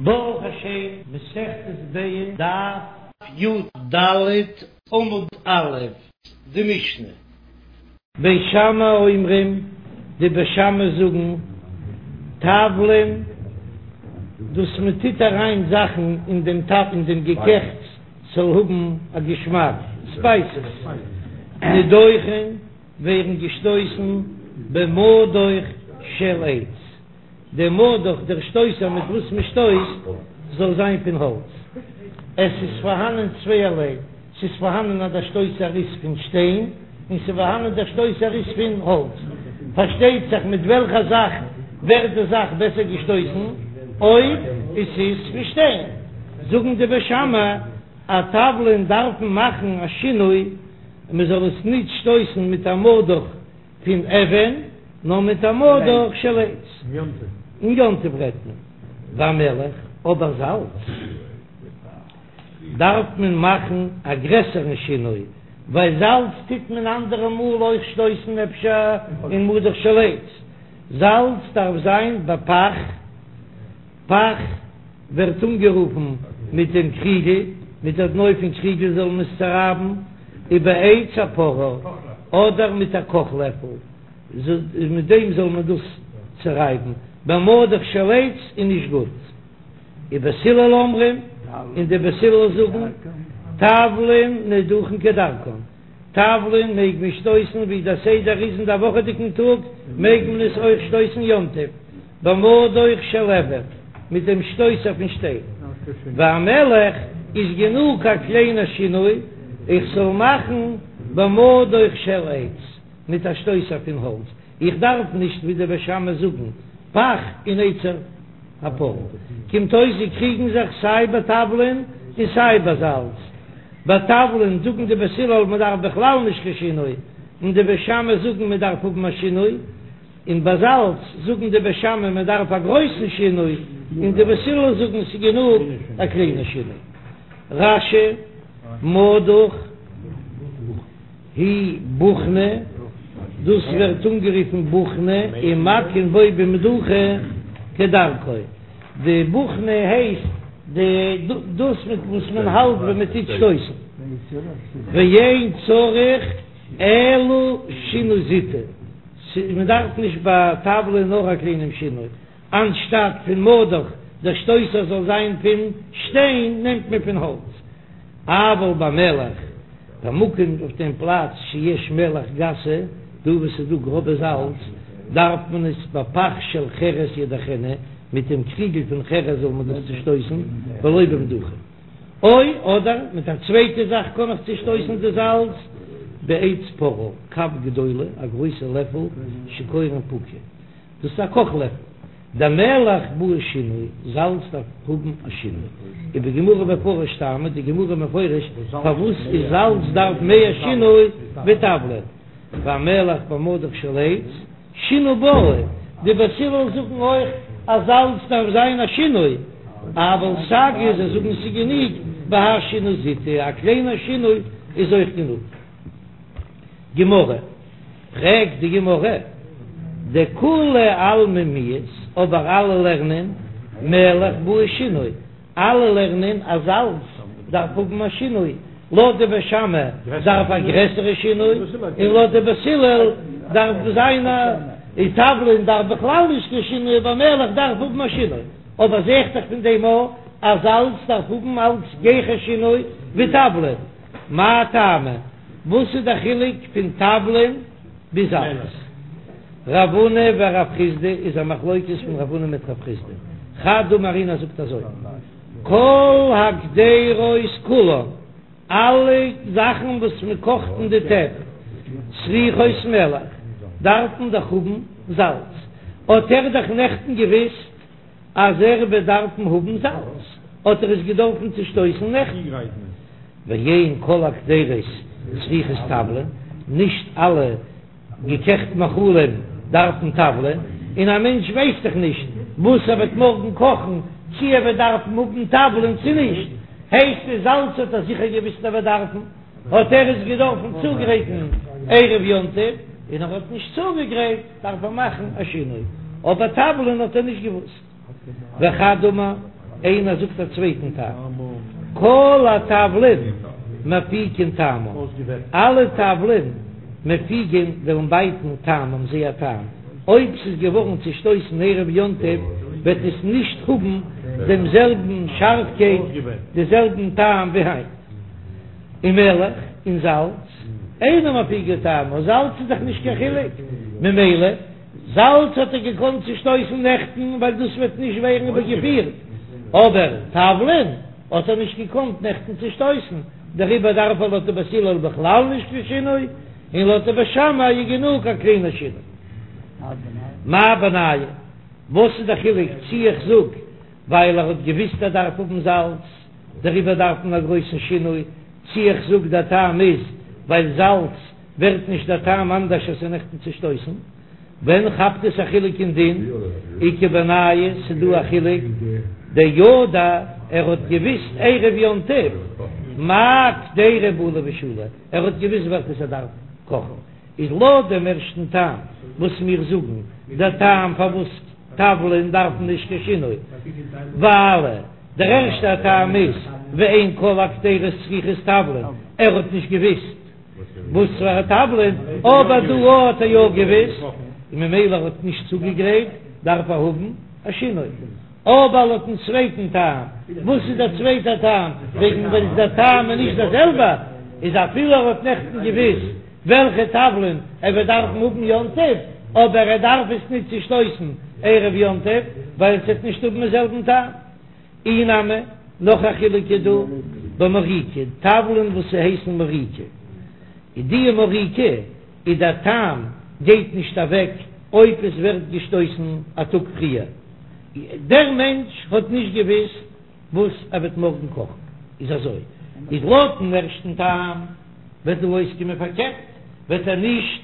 ברוך השם, מסכת ביצה, דף י"ד עמוד א', די משנה. בית שמאי אומרים, די בית שמאי זאגן, תבלין, דאס מען טוט אריין זאכן אין דעם טאפ אין דעם געקעכטס ס'זאל האבן א געשמאק, ספייסעס, נידוכין ווערן געשטויסן במדוך של עץ. דער מדוך, דער שטויסער מיט וואס מען שטויסט, זאל זיין פון האלץ. עס איז פארהאנען צווייערליי, ס'איז פארהאנען אז דער שטויסער איז פון שטיין, און ס'איז פארהאנען דער שטויסער איז פון האלץ. פארשטייט זיך מיט וועלכע זאך ווערט די זאך בעסער געשטויסן, אויב עס איז פון שטיין. זאגן די בית שמאי אז תבלין דארפן מאכן א שינוי, מען זאל עס ניט שטויסן מיט א מדוך פון אבן, נאר מיט א מדוך של עץ. אין יום טוב רעדט מען והמלח, אבער זאלץ דארף מען מאכן א גרעסערן שינוי, ווייל זאלץ טוט מען אנדערע מאל אויך שטויסן אפשר אין מדוך של עץ. זאלץ דארף זיין בפך, פך ווערט אנגערופן מיט דעם קריגל, מיט דער דנא פון קריגל זאל מען עס צערייבן, ובעץ הפרור, אדער מיט א קאך לעפל, מיט דעם זאל מען דאס צערייבן, במדוך של עץ איז נישט גוט. ובית הלל אומרים, און די בית הלל זאגן, תבלין נידוכין כדרכן, תבלין מעג מען שטויסן ווי דער סדר איז אין דער וואכעדיגן טאג, מעג מען עס אויך שטויסן יום טוב, במדוך של אבן, מיט דעם שטויסער פון שטיין. והמלח איז גענוג א קליינער שינוי, איך זאל מאכן במדוך של עץ, מיט א שטויסער פון האלץ, איך דארף נישט ווי די בית שמאי זאגן פך און עץ הפרור. קומט אויס זיי קריגן זיך סיי ביי תבלין און סיי ביי זאלץ. ביי תבלין זאגן די בית הלל מען דארף בכלל נישט קיין שינוי, און די בית שמאי זאגן מען דארף האבן א שינוי. און ביי זאלץ זאגן די בית שמאי מען דארף א גרויסן שינוי, און די בית הלל זאגן ס'איז גענוג א קליינע שינוי. רש"י, מדוך היא בוכנא, דאס ווערט אנגערופן בוכנא, ומכין בו במדוכה כדרכו, די בוכנא הייסט די דאס מיט וואס מען האלט ווען מען טוט שטויסן, ואין צריך אלא שינוי זוטא, מען דארף נישט ביי תבלין נאר א קליינעם שינוי, אנשטאט פון מדוך דער שטויסער זאל זיין פון שטיין נעמט מען פון האלץ, אבל במלח במקום אויף דעם פלאץ שיש מלח גסה, דא וואו ס'איז דא גראבע זאלץ דארף מען עס בפך של חרס ידוכנה, מיט דעם קריגל פון חרס זאל מען דאס צושטויסן, ולא במדוכה. או, אדער מיט א צווייטע זאך קען איך צושטויסן די זאלץ, בעץ פרור, כף גדולה, א גרויסע לעפל, שקורין פוקא, דאס איז א קאך לעפל, דמלח בעי שינוי, זאלץ דארף האבן א שינוי, ובגמרא מפרש טעמא, די גמרא מפרש פארוואס איז זאלץ דארף מער שינוי ווי תבלין, והמלח במדוך של עץ. שינוי בעי, די בית הלל זאגן אויך אז זאלץ דארף זיין א שינוי, אבל סגי זיי זאגן ס'גענוג בהאי שינוי זוטא, א קליינער שינוי איז אויך גענוג. גמרא, פרעגט די גמרא, דכולי עלמא מיהת, אבער אלע לערנען מלח בעי שינוי, אלע לערנען אז זאלץ דארף האבן א שינוי, לויט די בית שמאי דארף א גרעסערע שינוי, און לויט די בית הלל דארף זיין א, און תבלין דארף בכלל נישט קיין שינוי אבער מלח דארף האבן א שינוי, אבער זעהט זיך פון דעם אויך אז זאלץ דארף האבן אלץ גיכער שינוי ווי תבלין, מאי טעמא? וואס איז די חילוק פון תבלין ביז זאלץ? רב הונא ורב חסדא איז א מחלוקת פון רב הונא מיט רב חסדא, חד אמר איינער זאגט אזוי, כל הקדירות כולן, אלע זאכן וואס מען קאכט אין די טעפ, צריכות מלח, דארפן דאך האבן זאלץ, האט ער דאך נעכטן געוויסט אז ער וועט דארפן האבן זאלץ, האט ער עס געדארפן צושטויסן נעכטן. ואין כל הקדירות צריכות תבלין, נישט אלע געקעכט מאכלים דארפן תבלין, און א מענטש ווייסט דאך נישט וואס ער וועט מארגן קאכן, צי ער וועט דארפן האבן תבלין צי נישט, הייסט עס זאלץ האט ער זיכער געוויסט ער וועט דארפן, האט ער עס געדארפן צוגרייטן ערב יום טוב, און ער האט נישט צוגעגרייט דארף ער מאכן א שינוי, אבער תבלין האט ער נישט געוואוסט. וחד אמר. איינער זאגט א צווייטן טעם, כל התבלין מפיקין טעמם, אלע תבלין מפיקין וועלן בייטן טעמם זייער טעם, אויב ס'איז געווארן צושטויסן ערב יום טוב וועט עס נישט האבן דעם זעלבן שארפקייט, די זעלבן טעם ווי היינט. ומלח, און זאלץ, אינה מפיקה טעמה, זאלץ איז דאך נישט קיין חילוק, ממילא זאלץ האט ער געקאנט צושטויסן נעכטן ווייל דאס וועט נישט ווערן איבערגעפירט, אבער תבלין האט ער נישט געקאנט נעכטן צושטויסן, דעריבער דארף ער לויט די בית הלל בכלל נישט קיין שינוי, און לויט די בית שמאי איז גענוג א קליינער שינוי. מאי בינייהו? וואס איז די חילוק צי איך זאג ווייל ער האט געוויסט ער דארף האבן זאלץ דעריבער דארף מען א גרויסן שינוי, צי איך זאג דער טעם איז ווייל זאלץ ווערט נישט דער טעם אנדערש אז ס'איז נעכטן צושטויסן? ווען כאפט עס א חילוק אין דין? איכא בינייהו ס'דא א חילוק דידע ער האט געוויסט ערב יום טוב מאי קדירה בעי לבשולי ער האט געוויסט וועלכעס ער דארף קאכן איז לויט דעם ערשטן טעם וואס מיר זאגן דער טעם פארוואס תבלין דארפן נישט קיין שינוי ווייל דער ערשטער טעם איז ואין כל הקדירות צריכות תבלין ער האט נישט געוויסט וואס פאר א תבלין, אבער דא האט ער יא געוויסט, און ממילא ער האט נישט צוגעגרייט, דארף ער האבן א שינוי. אבער לויטן צווייטן טעם, וואס איז דער צווייטער טעם? וועגן ווען איז דער טעם איז נישט דער זעלבער, איז אפילו ער האט נעכטן געוויסט וועלכע תבלין ער וועט דארפן האבן יום טוב, אבער ער דארף עס נישט צושטויסן ערב יום טוב, ווייל עס וועט נישט האבן דעם זעלבן טעם. אי נמי, נאך א חילוק איז דא במוריקא, תבלין וואס ס'הייסן מוריקא, איז די מוריקא איז דער טעם גייט נישט אוועק אויב עס ווערט געשטויסן א טאג פריער, דער מענטש האט נישט געוויסט וואס ער וועט מארגן קאכן, איז אזוי איז לויטן ערשטן טעם וועט דא אויסקומען פארקערט, וועט ער נישט.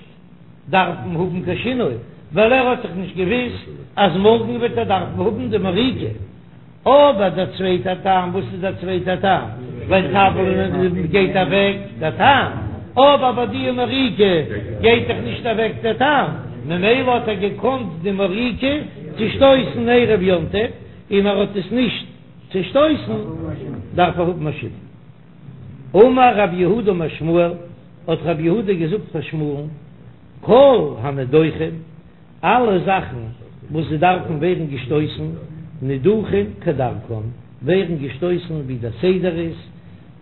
דארפן האבן קיין שינוי, ווייל ער האט דאך נישט געוויסט אז מארגן וועט ער דארפן האבן די מוריקא. אבער דער צווייטער טעם, וואס איז דער צווייטער טעם? ווייל תבלין גייט אוועק דער טעם, אבער ביי די מוריקא גייט דאך נישט אוועק דער טעם, ממילא האט ער געקאנט די מוריקא צושטויסן ערב יום טוב, און ער האט עס נישט צושטויסן, דארף ער האבן א שינוי. אמר רב יהודה אמר שמואל, האט רב יהודה געזאגט פאר שמואל'ן, כל הנדוכין, אלע זאכן וואס זיי דארפן ווערן געשטויסן, נידוכין כדרכן, ווערן געשטויסן ווי דער סדר איז,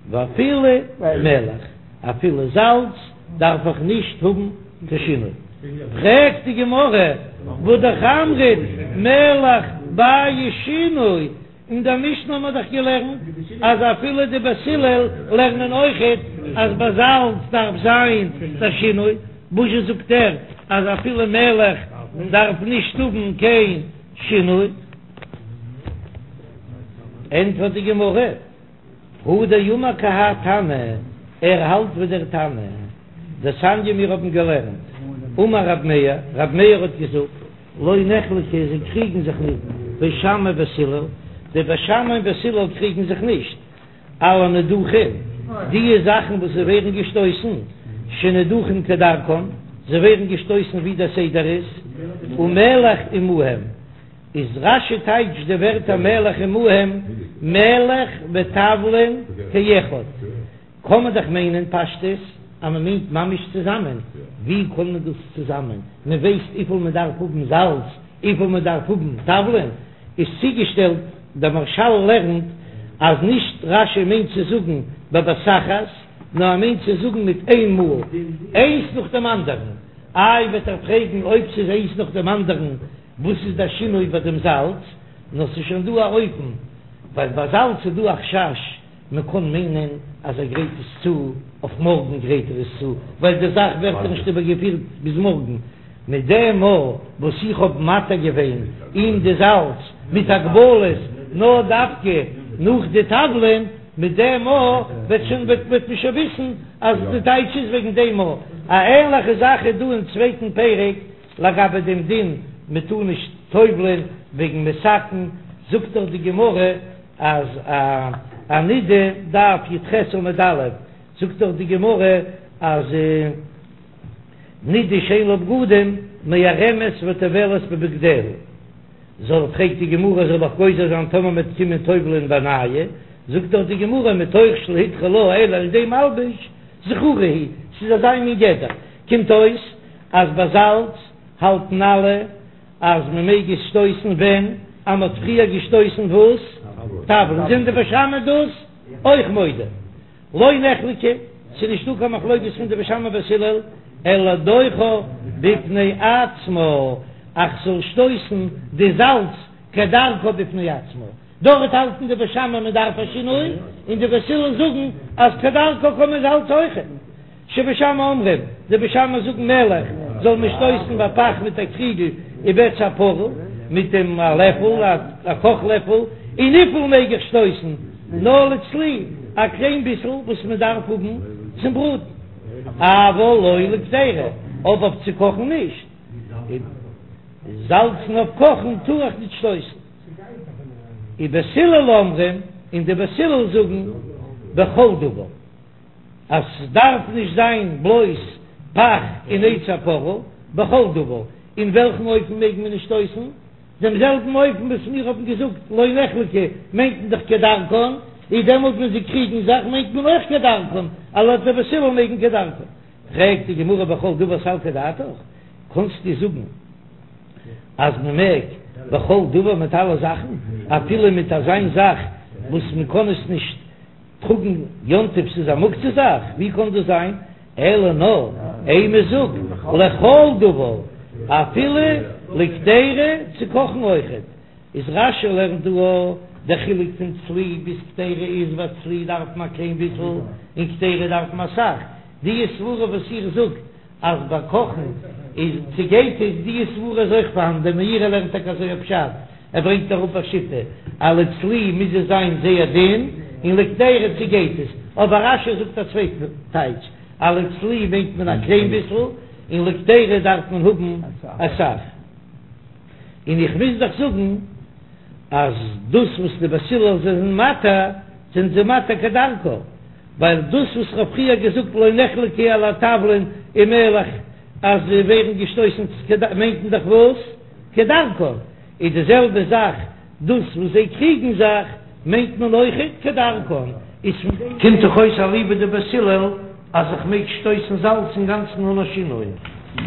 ואפילו מלח, אפילו זאלץ דארף איך נישט האבן קיין שינוי. פרעגט די גמרא, והא אמרת מלח בעי שינוי, אין דער משנה האט מען דאך געלערנט אז אפילו די בית הלל לערנען אויכעט אז ביי זאלץ דארף זיין דער שינוי, וואזשע זאגט ער אז אפילו מלח דארף נישט האבן קיין שינוי? ענטפערט די גמרא, הוא דאמר כי האי תנא, ער האלט ווי דער תנא, דתניא מיר האבן געלערנט, אמר רב מאיר, רב מאיר האט געזאגט, לא נחלקו זיי קריגן זיך ניט, בית שמאי ובית הלל, די בית שמאי און בית הלל קריגן זיך נישט, על הנידוכין, דיע זאכן וואס זיי ווערן געשטויסן, שנידוכין כדרכן, זיי ווערן געשטויסן ווי דער סדר איז, ומלח עמהם, איז רש"י טייטשט די ווערטער מלח עמהם, מלח ותבלין כאחד. קען מען דאך מיינען פשטות אז מען מיינט ממש צוזאמען, ווי קען מען דאס צוזאמען? מען ווייסט וויפיל מען דארף האבן זאלץ, וויפיל מען דארף האבן תבלין, איז צוגעשטעלט, דער מהרש"ל לערנט אז נישט רש"י מיינט צו זאגן בבת אחת, נאר ער מיינט צו זאגן מיט איין מאל, איינס נאך דעם אנדערן, איי וועט ער פרעגן אויב ס'איז איינס נאך דעם אנדערן וואס איז דער שינוי ביי דעם זאלץ, נאר ס'איז שוין דא א אופן, ווייל ביי זאלץ איז דא א חשש מען קען מיינען אז ער גרייט עס צו אויף מארגן גרייט ער עס צו, ווייל די זאך ווערט נישט איבערגעפירט ביז מארגן, מיט דעם מאל וואס איך האב מתיר געווען אים די זאלץ מיט הגבלות נאר דווקא נאך די תבלין, מיט דעם מאל וועט שוין וועט מען שוין וויסן אז די טייטש איז וועגן דעם מאל. א ענליכע זאך איז דא אין צווייטן פרק לגבי דעם דין מען טאר נישט טובל'ען וועגן מתקן, זאגט דאך די גמרא אז א נידה, דף י"ח עמוד א', זאגט דאך די גמרא אז נידה שאין לה בגדים מערמת וטובלת בבגדיה. זאל, פרעגט די גמרא, זאל איך גוזר זיין טאמער מ'וועט קומען טובל'ען בנייא, זאגט דאך די גמרא מתוך שלא הותרה לה אלא על ידי מלבוש, זכורה היא, ס'איז אזא מין גדר, קומט אויס אז ביי זאלץ האלטן אלע אז מ'מעג עס שטויסן ווען אז מ'האט פריער געשטויסן וואס? תבלין, זענען די בית שמאי דאס אויך מודה? לא נחלקו, ס'איז נישטא קיין מחלוקת פון די בית שמאי בית הלל, אלא לדוחה בפני עצמה, אז כ'זאל שטויסן די זאלץ כדרכה בפני עצמה, דארט האלטן די בית שמאי מען דארף א שינוי, און די בית הלל זאגן אז כדרכה קען מען זאלץ אויכעט. שבית שמאי אומרים, די בית שמאי זאגן מלח זאל מען שטויסן בפך מיט א קריגל ובעץ הפרה מיט דעם א לעפל, א קאך לעפל, און וויפיל מעג איך שטויסן? נאר לצלי, א קליין ביסל וואס מען דארף האבן צום בראטן, אבל לא לקדירה, אבער אויף צו קאכן נישט, זאלצן אויף קאכן טאר איך נישט שטויסן. ובית הלל אומרים, און די בית הלל זאגן בכל דבר. אז ס'דארף נישט זיין בלויז פך און עץ הפרה, בכל דבר, אין וועלכן אופן מעג מען נישט שטויסן? דעם זעלבן אופן וואס מיר האבן געזאגט לא נחלקו מיינט מען דאך כדרכן, איז דעמאלט ווען זיי קריגן זיך מיינט מען אויך כדרכן, אז לויט די בית הלל מעג מען כדרכן. פרעגט די גמרא בכל דבר סלקא דעתך, קענסטו זאגן אז מען מעג בכל דבר מיט אלע זאכן, אפילו מיט אזיין זאך וואס מען קען עס נישט טראגן יום טוב ס'איז א מוקצה זאך, ווי קען דאס זיין? אלא נאר אימא זאג לכל דבר אפילו לקדירה צו קאכן אויכעט, איז רש"י לערנט דא א דער חילוק פון צלי ביז קדירה איז ווייל צלי דארף מען א קליין ביסל און קדירה דארף מען אסאך, די סברה וואס איר זאגט אז ביי קאכן איז צעגייט עס, די סברה איז אויך פארהאן, דער מאירי לערנט טאקע אזוי א פשט, ער ברענגט אראפ א שיטה אז לצלי מוז עס זיין זייער דין און לקדירה צעגייט עס, אבער רש"י זאגט א צווייטן טייטש אז לצלי מיינט מען א קליין ביסל און לקדירה דארף מען האבן אסאך, און איך מוז דאך זאגן אז דאס וואס די בית הלל זענען מתיר זענען זיי מתיר כדרכה. ווייל דאס וואס כ'האב פריער געזאגט לא נחלקו אלא התבלין ומלח אז זיי ווערן געשטויסן מיינט מען דאך וואס? כדרכן, איז די זעלבע זאך דאס וואס זיי קריגן זיך מיינט מען אויכעט כדרכן, איז פון דעם קומט דאך אויס אליבא דבית הלל אז איך מעג שטויסן זאלץ אינגאנצן אן א שינוי.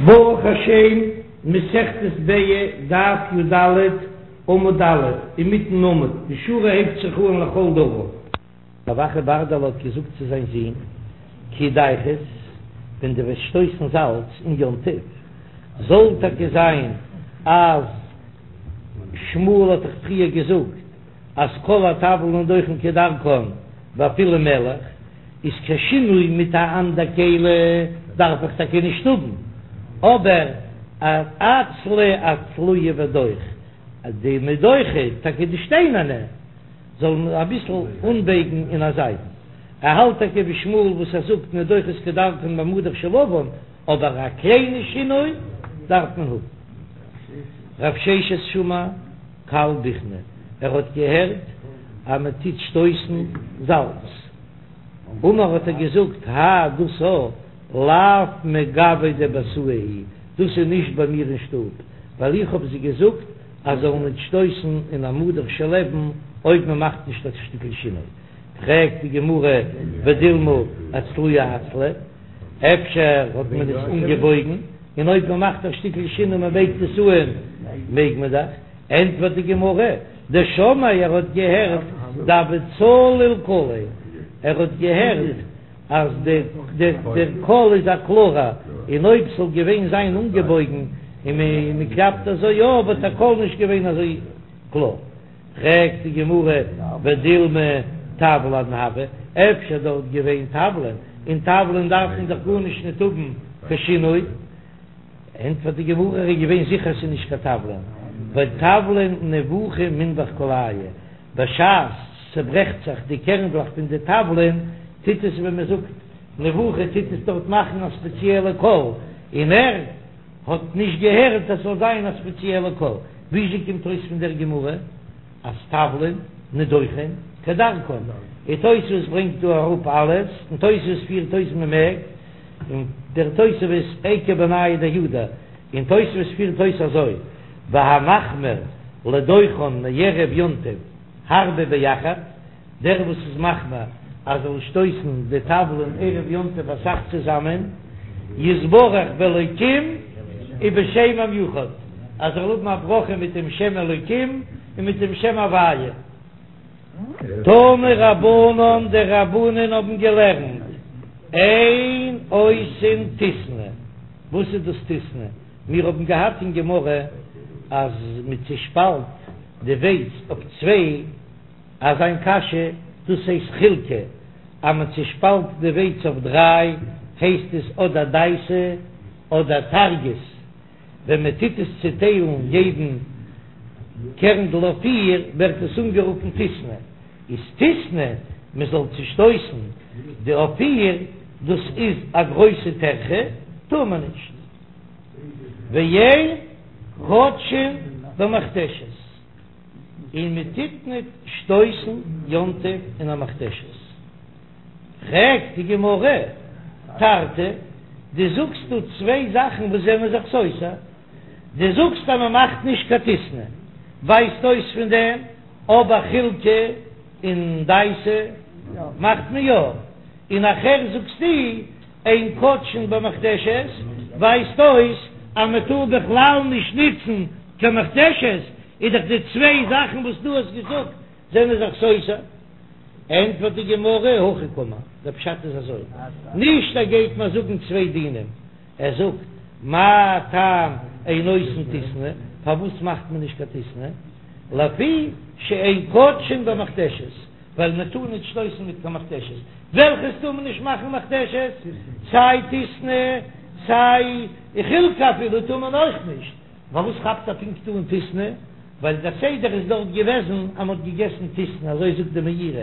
ברוך השם, מסכת ביצה, דף י"ד, עמוד א', אינמיטן עמוד, די שורה הייבט זיך אן לכל דבר. רב אחא ברדלא האט געזאגט צו זיין זון, כי דרכת, ווען דו וועסט שטויסן זאלץ אין יום טוב, זאל טאקע זיין אז שמואל האט דאך פריער געזאגט אז כל התבלין נדוכין כדרכן ואפילו מלח, איז קיין שינוי מיט א אנדער כלי דארף איך טאקע נישט האבן, אבער אצלה אצלויי ודוך, די מדוכה, טאקע די שטיינערנע. זאל מען אביסל אנבייגן אין א זייט. ער האלט טאקע ווי שמואל וואס ער זאגט נדוכות כדרכן במדוך של אבן, אבער א קליינע שינוי דארף מען האבן. רב ששת שמע קל בוכנא, ער האט געהערט אז מען טוט שטויסן זאלץ. אמר האט ער געזאגט האי דאס א לאו מגוי דביתאי הוא, דאס איז נישט ביי מיר אין שטוב, ווייל איך האב זיי געזאגט אז זאלן ניט שטויסן אין א מדוך של אבן אויב מען מאכט נישט א שטיקל שינוי. פרעגט די גמרא ודילמא אצלויי אצלי, אפשר האט מען עס אנגעבויגן, און אויב מען מאכט א שטיקל שינוי מען בייגט עס אן מעג מען דאך, ענטפערט די גמרא, דשמעיה ער האט געהערט דהוה צליל קליה, ער האט געהערט אז דער קול איז א קלארע, און אויב ס'זאל געווען זיין אנגעבויגן און מען קלאפט אזוי יא וואלט דער קול נישט געווען אזוי קלאר. פרעגט די גמרא ודילמא תבלין הוו, אפשר דארט געווען תבלין, און תבלין דארף מען דאך גארנישט ניט האבן קיין שינוי, ענטפערט די גמרא ער איז געווען זיכער ס'איז נישט קיין תבלין, ווייל תבלין נבוכי מנבח קלייהו, בשעת ס'ברעכט זיך די קערנדלעך פון די תבלין, טוט עס ווי מ'זאגט נבוכי טוט עס דארט מאכן א ספעציעלע קול, און ער האט נישט געהערט אז ס'זאל זיין א ספעציעלע קול. וויאזוי קומט אויס פון דער גמרא אז תבלין נדוכין כדרכן? און תוספות ברענגט דא אראפ אלעס, און תוספות פירט אויס מ'מעג, און דער תוספות איכא בינייהו דידע, און תוספות פירט אויס אזוי, והמחמיר. לדוחן מערב יום טוב הרבה ביחד, דער וואס איז מחמיר אז זאל שטויסן די תבלין ערב יום טוב אסאך צוזאמען, יתברך באלוקים ובשם המיוחד, אז ער זאל האבן א ברכה מיט דעם שם אלוקים און מיט דעם שם הוויה. תנו רבנן, די רבנן האבן געלערנט, אין עושין טיסני, וואס איז דאס טיסני? מיר האבן געהאט אין גמרא אז מען צושפאלט די ווייץ אויף צוויי, אזא מין קאשע, דאס הייסט חילקא, אז מען צושפאלט די ווייץ אויף דריי הייסט עס אדער דייסא אדער טרגית, ווען מען טוט עס צוטיילן יעדן קערנדל אויף פיר ווערט עס אנגערופן טיסני, איז טיסני מען זאל צושטויסן די אויף פיר, דאס איז א גרויסע טרחה, טאר מען נישט. ואין כותשין במכתשת, און מען טוט ניט שטויסן יום טוב אין א מכתשת. פרעגט די גמרא, תרתי, דו זאגסט דא צוויי זאכן וואס זענען זיך סותר, דו זאגסט אז מען מאכט נישט קיין טיסני, ווייזט אויס פון דעם, אבער חילקא און דייסא מאכט מען יא, און נאכהער זאגסטו אין כותשין במכתשת, ווייזט אויס אז מען טאר בכלל נישט ניצן קיין מכתשת, איז דאך די צוויי זאכן וואס דו האסט געזאגט זענען זיך סותר. ענטפערט די גמרא, הכי קאמר, דער פשט איז אזוי, נישט ער גייט מיר זאגן צוויי דינים, ער זאגט, מה טעם אין עושין טיסני, פארוואס מאכט מען נישט קיין טיסני, לפי שאין כותשין במכתשת, ווייל מען טאר נישט שטויסן מיט קיין מכתשת, וועלכעס טאר מען נישט מאכן מכתשת? סיי טיסני סיי חילקא אפילו טאר מען אויך נישט, פארוואס כאפט ער פונקט אן טיסני? ווייל דער סדר איז דארט געוועזן אז מען האט געגעסן טיסני, אזוי זאגט די מאירי,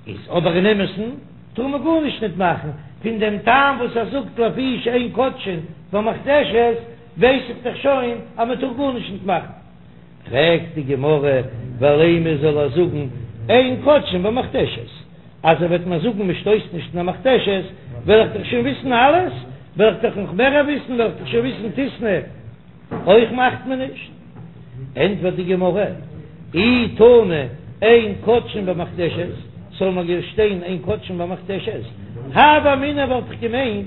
איז אבער אין אמת'ן טאר מען גארנישט ניט מאכן, פון דעם טעם וואס ער זאגט לפי שאין כותשין במכתשת ווייס איך דאך שוין אז מען טאר גארנישט ניט מאכן. פרעגט די גמרא, ולימא זאל ער זאגן אין כותשין במכתשת, אז ער וועט מיר זאגן מען שטויסט נישט אין א מכתשת, וועל איך דאך שוין וויסן אלעס, וועל איך דאך נאך מער וויסן, וועל איך דאך שוין וויסן טיסני אויך מאכט מען נישט. ענטפערט די גמרא, אי תנא אין כותשין במכתשת, זאל מיר שטיין אין כותשין במכתשת, הוה אמינא וואלט איך געמיינט,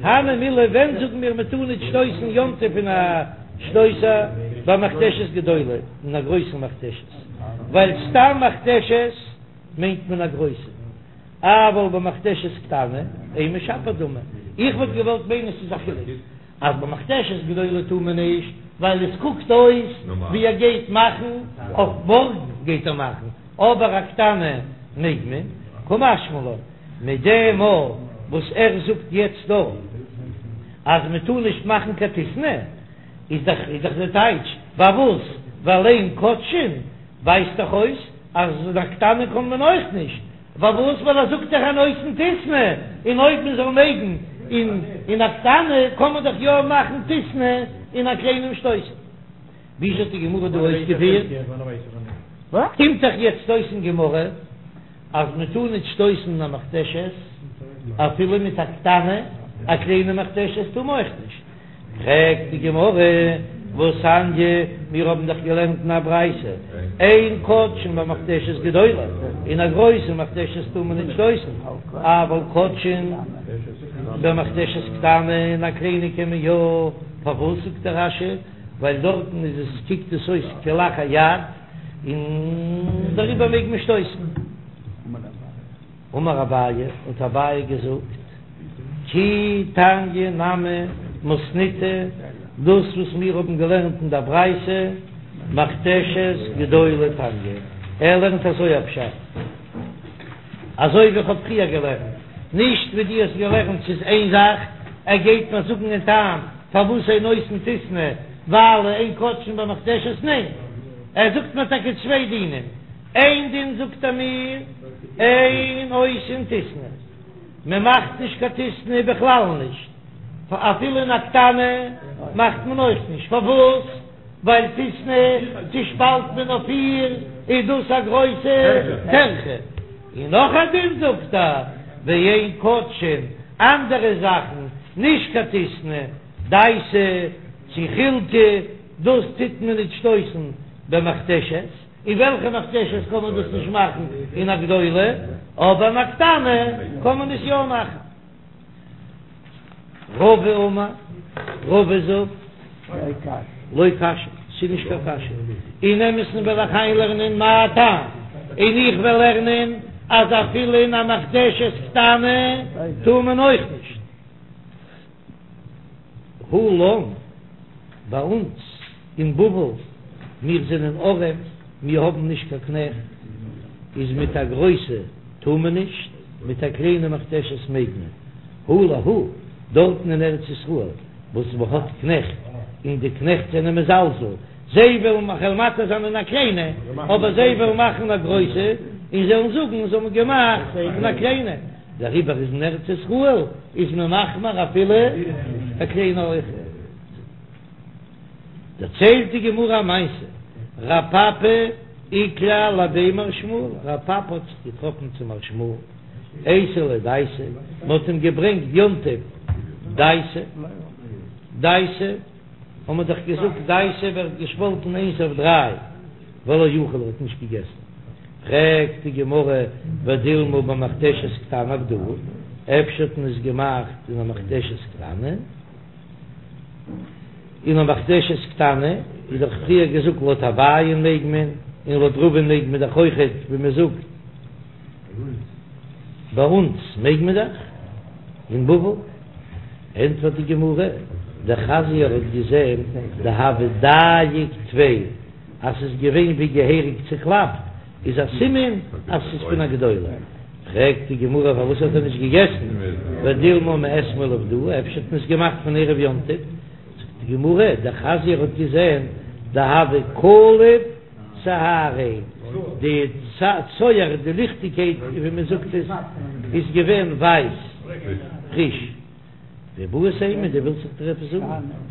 הני מילי ווען זאגן מיר מען טאר נישט שטויסן יום טוב אין א שטויסער במכתשת גדולה, אין א גרויסן מכתשת, ווייל סתם מכתשת מיינט מען א גרויסע, אבל במכתשת קטנה אימא שפיר דמי, איך וואלט געוואלט מיינען ס'איז א חילוק אז במכתשת גדולה טאר מען נישט ווייל עס קוקט אויס ווי ער גייט מאכן אויף מארגן גייט ער מאכן, אבער א קטנה מעג מען, קא משמע לן מיט דעם מאל וואס ער זאגט יעצט דא אז מען טאר נישט מאכן קיין טיסני איז דאך איז דאך די טייטש פארוואס ווייל אין כותשין ווייזט דאך אויס אז א קטנה קען מען אויך נישט פארוואס ווייל ער זאגט דאך אין עושין טיסני און אויב מען זאל מעגן אין אין א קטנה קען מען דאך יא מאכן טיסני אין א קליינעם שטויסל. וויאזוי האט די גמרא דא אויסגעפירט? קומט דאך יעצט אויס אין גמרא אז מען טאר נישט שטויסן אין א מכתשת אפילו מיט א קטנה, א קליינע מכתשת טאר מען אויך נישט. פרעגט די גמרא, והתניא, מיר האבן דאך געלערנט אין א ברייתא, אין כותשין במכתשת גדולה, אין א גרויסע מכתשת טאר מען נישט שטויסן, אבל כותשין במכתשת קטנה, אין א קליינע קען מען יא, פארוואס זאגט דער רש"י, ווייל דארטן איז עס קוקט עס אויס כלאחר יד, און דעריבער מעג מען שטויסן. אמר אביי, האט אביי געזאגט, כי תניא נמי מתניתא, דאס וואס מיר האבן געלערנט אין דער ברייתא, מכתשת גדולה תניא, ער לערנט אזוי א פשט, אזוי ווי איך האב פריער געלערנט, נישט ווי דו האסט געלערנט, ס'איז איין זאך, ער גייט מיר זאגן אין טעם פארוואס אין עושין טיסני, ווייל אין כותשין במכתשת, ניין, ער זאגט מיר טאקע צוויי דינים. איין דין זאגט ער מיר, אין עושין טיסני, מען מאכט נישט קיין טיסני בכלל נישט, אפילו אין א קטנה מאכט מען אויך נישט, פארוואס? ווייל טיסני צושפאלט מען אויף פיר, איז דאס א גרויסע טרחה. און נאך א דין זאגט ער, ואין כותשין, אנדערע זאכן, נישט קיין טיסני, דייסא צו חילקא, דאס טוט מען נישט שטויסן. במכתשת, אין וועלכע מכתשת קען מען דאס נישט מאכן אין א גדולה, אבער אין א קטנה קען מען עס יא מאכן. רבא אמר, רבא זאגט, לא קשיא, ס'איז נישט קיין קשיא, אין אמת'ן וועל איך איינלערנען מה טעם, און איך וועל לערנען אז אפילו אין א מכתשת קטנה טאר מען אויך נישט. הא לן, ביי אונז אין בבל, מיר זענען ארעם, מיר האבן נישט קיין קנעכט, איז מיט א גרויסע טאר מען נישט, מיט א קליינע מכתשת מעג מען. הא להו, דארטן אין ארץ ישראל וואס מען האט קנעכט, און די קנעכט זענען מזלזל, זיי וועלן כ'וועל מתיר זיין אין א קליינע, אבער זיי וועלן מאכן א גרויסע, און זיי וועלן זאגן זיי האבן געמאכט אין א קליינע. דעריבער איז אין ארץ ישראל איז מען מחמיר אפילו א קליינע אויך. דערציילט די גמרא א מעשה, רב פפא איקלע לבי מר שמואל, רב פפא האט זיך געטראפן צו מר שמואל, אייתי ליה דייסא, מען האט אים געברענגט יום טוב דייסא, דייסא האט מען דאך געזאגט דייסא ווערט געשפאלטן איינס אויף דריי, ולא אכיל ער האט נישט געגעסן, פרעגט די גמרא ודילמא במכתשת קטנה עבדוה, אפשר האט מען עס געמאכט אין א מכתשת קטנה? אין א מכתשת קטנה איז דאך פריער געזאגט לויט אביי'ן מעג מען, און לויט רבא'ן מעג מען דאך אויכעט, ווי מען זאגט ביי אונז מעג מען דאך אין בבל. ענטפערט די גמרא, דחזייה ער האט געזען דהוה דייק טפי אז ס'איז געווען ווי געהעריג צוקלאפט, איז א סימן אז ס'איז פון א גדולה. פרעגט די גמרא פארוואס האט ער נישט געגעסן, ודילמא מאתמול עבדוה, אפשר האט מען עס געמאכט פון ערב יום טוב, זאגט די גמרא, דחזייה ער האט געזען דהוה קליף צהריה, די צוהר, די ליכטיגקייט ווי מען זאגט עס, איז געווען ווייס, פריש. ואיבעית אימא, דו ווילסט איך דיר עפעס זאגן?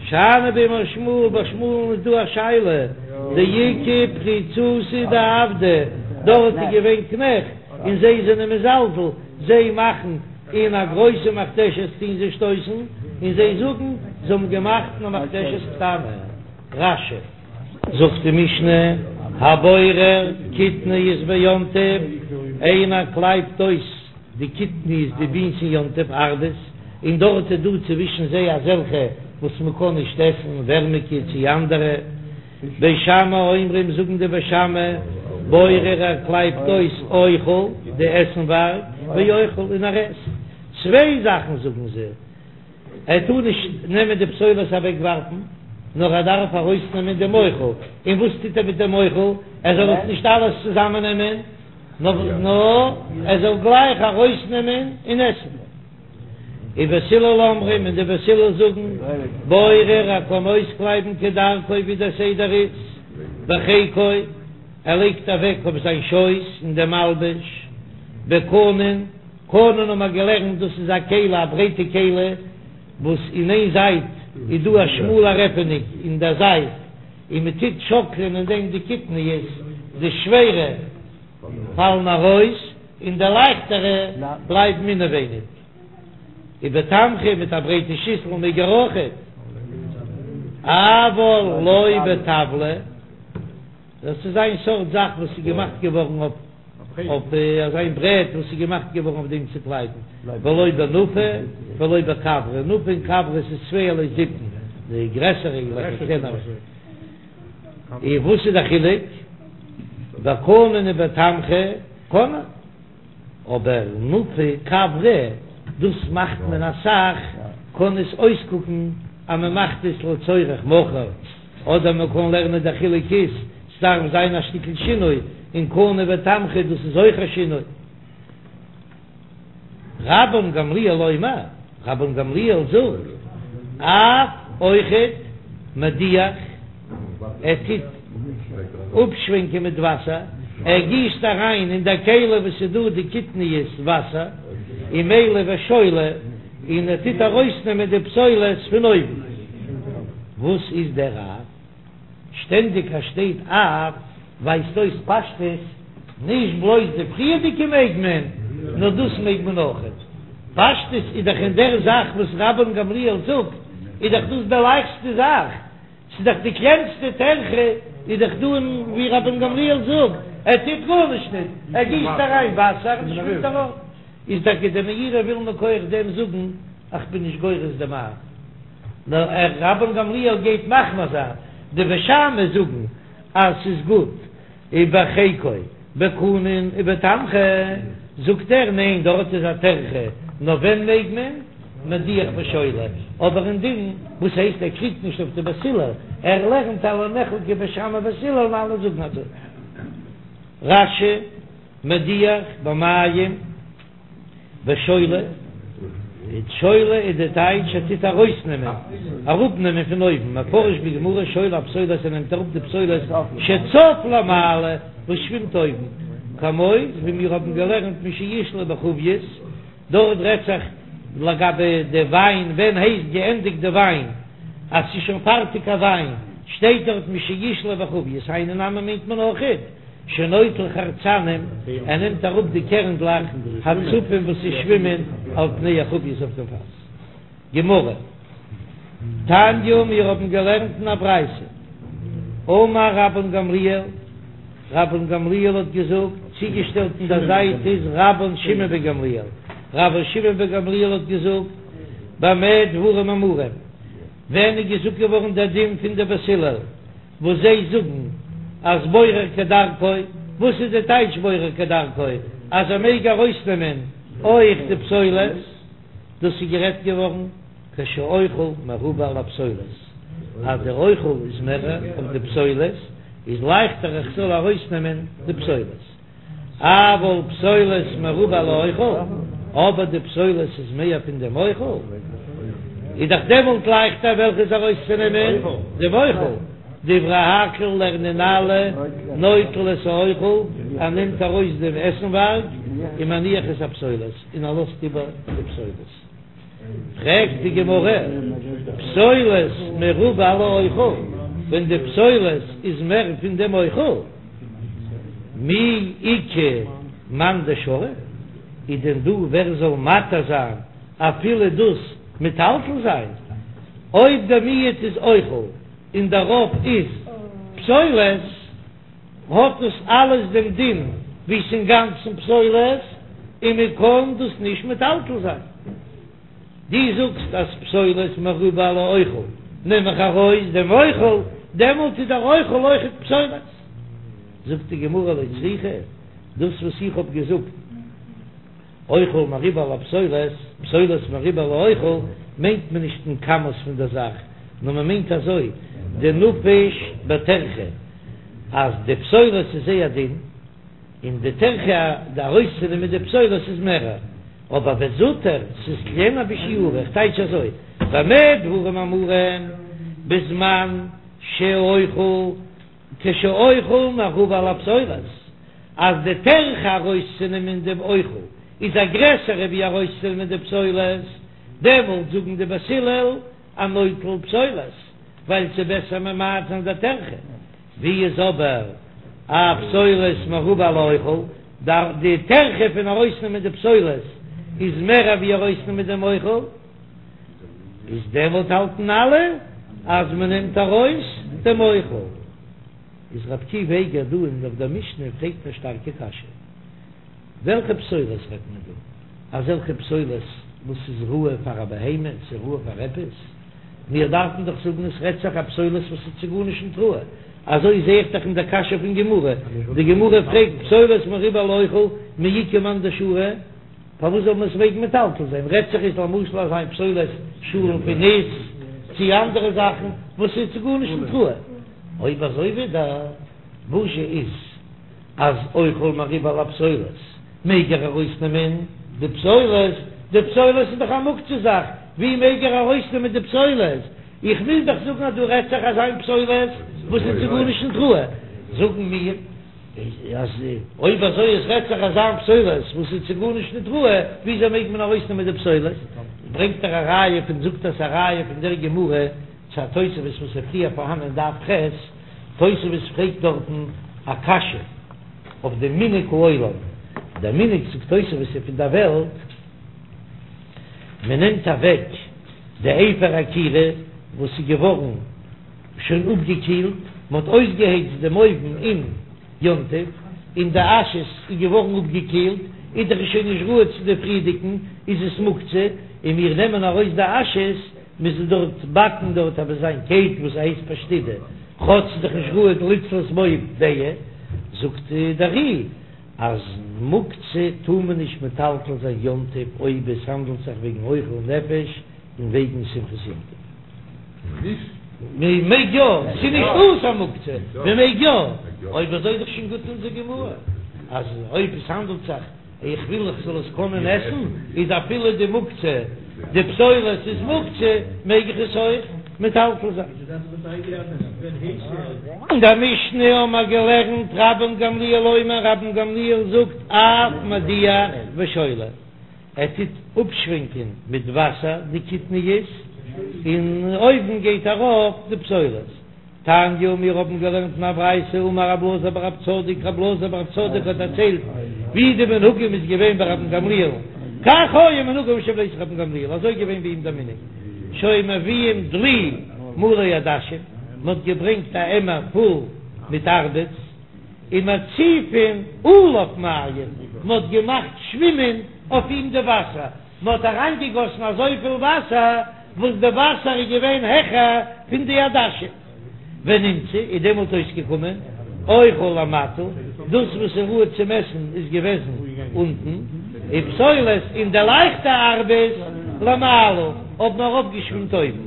שאני בי מר שמואל, ביי שמואל'ן איז דא א שאלה, דאיכא פריצותא דעבדי, דארט איז געווען קנעכט, און זיי זענען מזלזל, זיי מאכן אין א גרויסע מכתשת טוהן זיי שטויסן, און זיי זאגן זיי האבן געמאכט אין א מכתשת קטנה. רש"י. זאגט די משנה, הבורר קטניות ביום טוב, איינער קלייבט אויס די קטניות די בינס אין יום טוב ארבעס, און דארט איז דא צווישן זיי אזעלכע וואס מען קען נישט עסן, ווערמיגע צי אנדערע. בית שמאי אומרים זאגן די בית שמאי, בורר ער קלייבט אויס אוכל די עסנווארג, ואוכל און ער עסט. צוויי זאכן זאגן זיי. ער טאר נישט נעמען די פסולת אוועקווארפן, נאר ער דארף ארויסנעמען דעם אוכל, און וואס טוט ער מיט דעם אוכל? ער זאל עס נישט אלעס צוזאמען נעמען, נאר ער זאל גלייך ארויסנעמען און עסן. ובית הלל אומרים, און די בית הלל זאגן, בורר ער קען אויסקלייבן כדרכו ווי דער סדר איז, בחיקו, ער לייגט אוועק אויף זיין שויס אין דעם מלבוש, בקנון, קנון האבן מיר געלערנט דאס איז א כלי א ברייטע כלי וואס אין איין זייט איז דא א שמאלער עפענונג אין דער זייט און מען טוט שאקלען אין דעם די קטניות די שווערע פאלן ארויס און די לייכטערע בלייבן אינעווייניג ובתמחוי מיט א ברייטע שיסל מעג ער אויכעט אבל לא בטבלא. דאס איז איין סארט זאך וואס איז געמאכט געווארן אויף אויף אזא ברעט וואס איז געמאכט געווארן אויף דעם צו קלייבן, ולא בנפה ולא בכברה, נפה און כברה איז צווייערליי זיפן, די גרעסערע און די קלענערע. און וואס איז די חילוק? בקנון ובתמחוי קען מען. אבער נפה כברה, דאס מאכט מען אסאך, קען עס אויסקוקן אז מען מאכט עס לצורך מחר, אדער מען קען לערנען דער חילוק איז, ס'דארף זיין א שטיקל שינוי, און קנון ותמחוי דאס איז אויך א שינוי. רבן גמליאל אומר, רבן גמליאל זאגט, אף אויכעט מדיח, ער טוט אפשווענקען מיט וואסער, ער גיסט אריין אין דער כלי וואס איז דא די קטניות וואסער, ומילי ושולה, און ער טוט ארויסנעמען די פסולת פון אויבן. וואס איז דער אף? שטענדיג אז שטייט אף ווייזט אויס פשטות, נישט בלויז די פריערדיגע מעג מען, נאר דאס מעג מען אויכעט. פשטות איז דאך אין דער זאך וואס רבן גמליאל זאגט, איז דאך דאס די לייכסטע זאך, ס'איז דאך די קלענסטע טרחה. איז דאך דא און ווי רבן גמליאל זאגט, ער טוט גארנישט ניט, ער גיסט אריין וואסער און עס שווימט ארויף. איז טאקע די מאירי וויל מכח דעם זאגן איך בין נישט גורס דעם אב, נאר ער רבן גמליאל גייט מחמיר זיין, די בית שמאי זאגן אז ס'איז גוט ובחיקו בקנון ובתמחוי, זאגט ער ניין דארט איז א טרחה, נאר ווען מעג מען? מדיח ושולה, אבער אין דין וואס הייסט ער קריגט נישט אויף די בית הלל, ער לערנט אז לא נחלקו בית שמאי ובית הלל און אלע זאגן אזוי. רש"י, מדיח במים. ושולה, שולה איז די טייטש ער טוט ארויסנעמען, אראפנעמען פון אויבן, מפרש בגמרא שולה הפסולת ער נעמט אראפ די פסולת שצף למעלה וואס שווימט אויבן, כמו ווי מיר האבן געלערנט משישלה בחבית, דארט רעדט זיך לגבי די וויין, ווען הייסט געענדיגט די וויין אז ס'איז שוין פארטיג א וויין, שטייט דארט משישלה בחבית, היינו נמי מיינט מען אויכעט. שנוטל חרצנים, ער נעמט אראפ די קערנדלעך הצפים וואס זיי שווימען על פני החבית אויף דעם פאס. גמרא, תניא, מיר האבן געלערנט אין א ברייתא, אמר רבן גמליאל, רבן גמליאל האט געזאגט, צוגעשטעלט אין דער זייט איז רבן שמעון בן גמליאל, רבן שמעון בן גמליאל האט געזאגט, במה דברים אמורים, ווען איז געזאגט געווארן דער דין פון די בית הלל, וואס זיי זאגן אז בורר כדרכו, וואס איז די טייטש בורר כדרכו? אז ער מעג ארויסנעמען אויך די פסולת, דאס איז גערעדט געווארן כשהאוכל מרובה על הפסולת, אז דער אוכל איז מער אויף די פסולת, איז לייכטער איך זאל ארויסנעמען די פסולת. אבל פסולת מרובה על האוכל, אבער די פסולת איז מער פון דעם אוכל, איז דאך דעמאלט לייכטער וועלכעס ארויסצונעמען? דעם אוכל. דברי הכל לערנען אלע נוטל את האוכל, ער נעמט ארויס דעם עסנווארג, ומניח את הפסולת, און ער לאזט איבער די פסולת. פרעגט די גמרא, פסולת מרובה על האוכל, ווען די פסולת איז מער פון דעם אוכל, מי איכא מאן דשרי, איז דען דא ווער זאל מתיר זיין אפילו דאס מטלטל זיין? אויב דער מיעוט איז אוכל און דער רוב איז פסולת, האט דאס אלעס דעם דין ווי ס'אינגאנצן פסולת און מען קען דאס נישט מטלטל זיין. דו זאגסט אז פסולת מרובה על האוכל, נעם איך ארויס דעם אוכל, דעמאלט איז דער אוכל אויכעט פסולת. זאגט די גמרא לא צריכא, דאס וואס איך האב געזאגט אוכל מרובה על הפסולת, פסולת מרובה על האוכל, מיינט מען נישט אין כמות פון דער זאך, נאר מען מיינט אזוי, דנפיש בטרחה, אז די פסולת איז זייער דין, און די טרחה ארויסצונעמען די פסולת איז מערער, אבער וזוטר, ס'איז קלענער בשיעורא, איך טייטש אזוי, במה דברים אמורים, בזמן שהאוכל כשהאוכל מרובה על הפסולת, אז די טרחה ארויסצונעמען דעם אוכל איז א גרעסערע ווי ארויסצונעמען די פסולת, דעמאלט זאגן די בית הלל אז נוטל פסולת, ווייל ס'איז בעסער ממעט זיין די טרחה. ווי איז אבער א פסולת מרובה על האוכל, די טרחה פון ארויסנעמען די פסולת איז מער ווי ארויסנעמען דעם אוכל, איז דעמאלט האלטן אלע אז מען נעמט ארויס דעם אוכל. איז ר' עקיבא איגר דא אין אויף דער משנה פרעגט א שטארקע קשיא, וועלכע פסולת רעדט מען דא? אזעלכע פסולת וואס איז ראוי פאר א בהמה, ס'איז ראוי פאר עפעס? מיר דארפן דאך זאגן עס רעדט זיך א פסולת וואס איז צו גארנישט נישט ראוי, אזוי זעה איך דאך אין דער קשיא פון גמרא, די גמרא פרעגט פסולת מרובה על האוכל מי איכא מאן דשרי, פארוואס זאל מען עס מעגן מטלטל זיין? רעדט זיך איז למשל אזא מין פסולת שאלן פון ניס צי אנדערע זאכן וואס איז צו גארנישט נישט ראוי. אויב אזוי ווידער וואזשע איז אז אוכל מרובה על הפסולת מעג ער ארויסנעמען די פסולת? די פסולת איז דאך א מוקצה זאך, ווי מעג ער ארויסנעמען די פסולת? איך מוז דאך זאגן אז דא רעדט זיך אזא מין פסולת וואס איז צו גארנישט נישט ראוי. זאגן מיר. אז אויב אזוי עס רעדט זיך אזא מין פסולת וואס איז צו גארנישט ניט ראוי, וויאזוי מעג מען ארויסנעמען די פסולת? ברענגט ער א ראיה פון זאגט עס א ראיה פון דער גמרא צו א תוספות וואס איז פריער פארהאן אין דף ח', תוספות פרעגט דארטן א קשיא אויף דעם מנהג העולם, דער מנהג זאגט תוספות איז פון דער וועלט, מען נעמט אוועק די אפר הכירה וואס איז געווארן שוין אפגעקילט. מען האט אויסגעהייצט דעם אויוון אין יום טוב, און די אש איז געווארן אפגעקילט, איז דאך עס שוין נישט ראוי צו די פריערדיגן, איז עס מוקצה, און מיר נעמען ארויס די אשעס, מ'זאל דארט באקן דארט אבער זיין קעיק וואס הייסט פשטידא, כאטש ס'איז דאך נישט ראוי לצלות בו ביצה, זאגט דער ר"י אז מוקצה טאר מען נישט מטלטל זיין יום טוב אויב עס האנדלט זיך וועגן אוכל נפש און וועגן שמחת יום טוב. מען מעג יא, ס'איז נישט אסור מוקצה, מען מעג יא, אויב אזוי איז דאך שוין גוט אונזער גמרא אז אויב עס האנדלט זיך איך וויל איך זאל עס קענען עסן, איז אפילו די מוקצה, די פסולת איז מוקצה, מעג איך עס אויך מטלטל זיין. אין דער משנה האבן מיר געלערנט רבן גמליאל אומר, רבן גמליאל זאגט אף מדיח ושולה, ער טוט אפשווענקען מיט וואסער די קטניות, און אויבן גייט ארויף די פסולת. תניא, מיר האבן געלערנט אין א ברייתא, אמר רב אלעזר בר רב צדוק, רב אלעזר בר רב צדוק האט דערציילט ווי די מנהגים איז געווען ביי רבן גמליאל, כך היה מנהגם של בית רבן גמליאל, אזוי איז געווען ביי אים דער מנהג, שהיו מביאים דלי מלא עדשים, מען האט געברענגט א עמער פול מיט ארבעס, ומציפין עליו מים, מען האט געמאכט שווימען אויף אים די וואסער, מען האט אריינגעגאסן אזויפיל וואסער וואס די וואסער איז געווען העכער פון די עדשים, ונמצא איז דעמאלט אויסגעקומען אוכל למטה, דאס וואס איז ראוי צום עסן איז געוועזן אונטן, ופסולת און די לייכטע ארבעס למעלה האבן ארויפגעשווימט אויבן,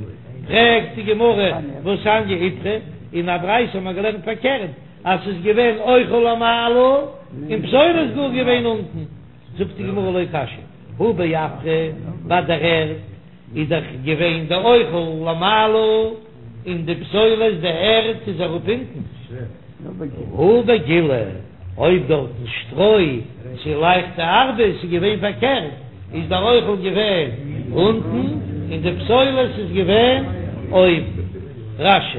פרעגט די גמרא והתניא איפכא, אין א ברייתא האט מען געלערנט פארקערט אז ס'איז געווען אוכל למעלה און פסולת גאר געווען אונטן. זאגט די גמרא לא קשיא, הא בעפרא, ביי דער ערד איז דאך געווען די אוכל למעלה און די פסולת די ערד איז אראפ אונטן, הא בגילי, אויב דארטן שטרוי צו לייכטע ארבעס איז געווען פארקערט, איז דער אוכל געווען אונטן און די פסולת איז געווען אויבן. רש"י.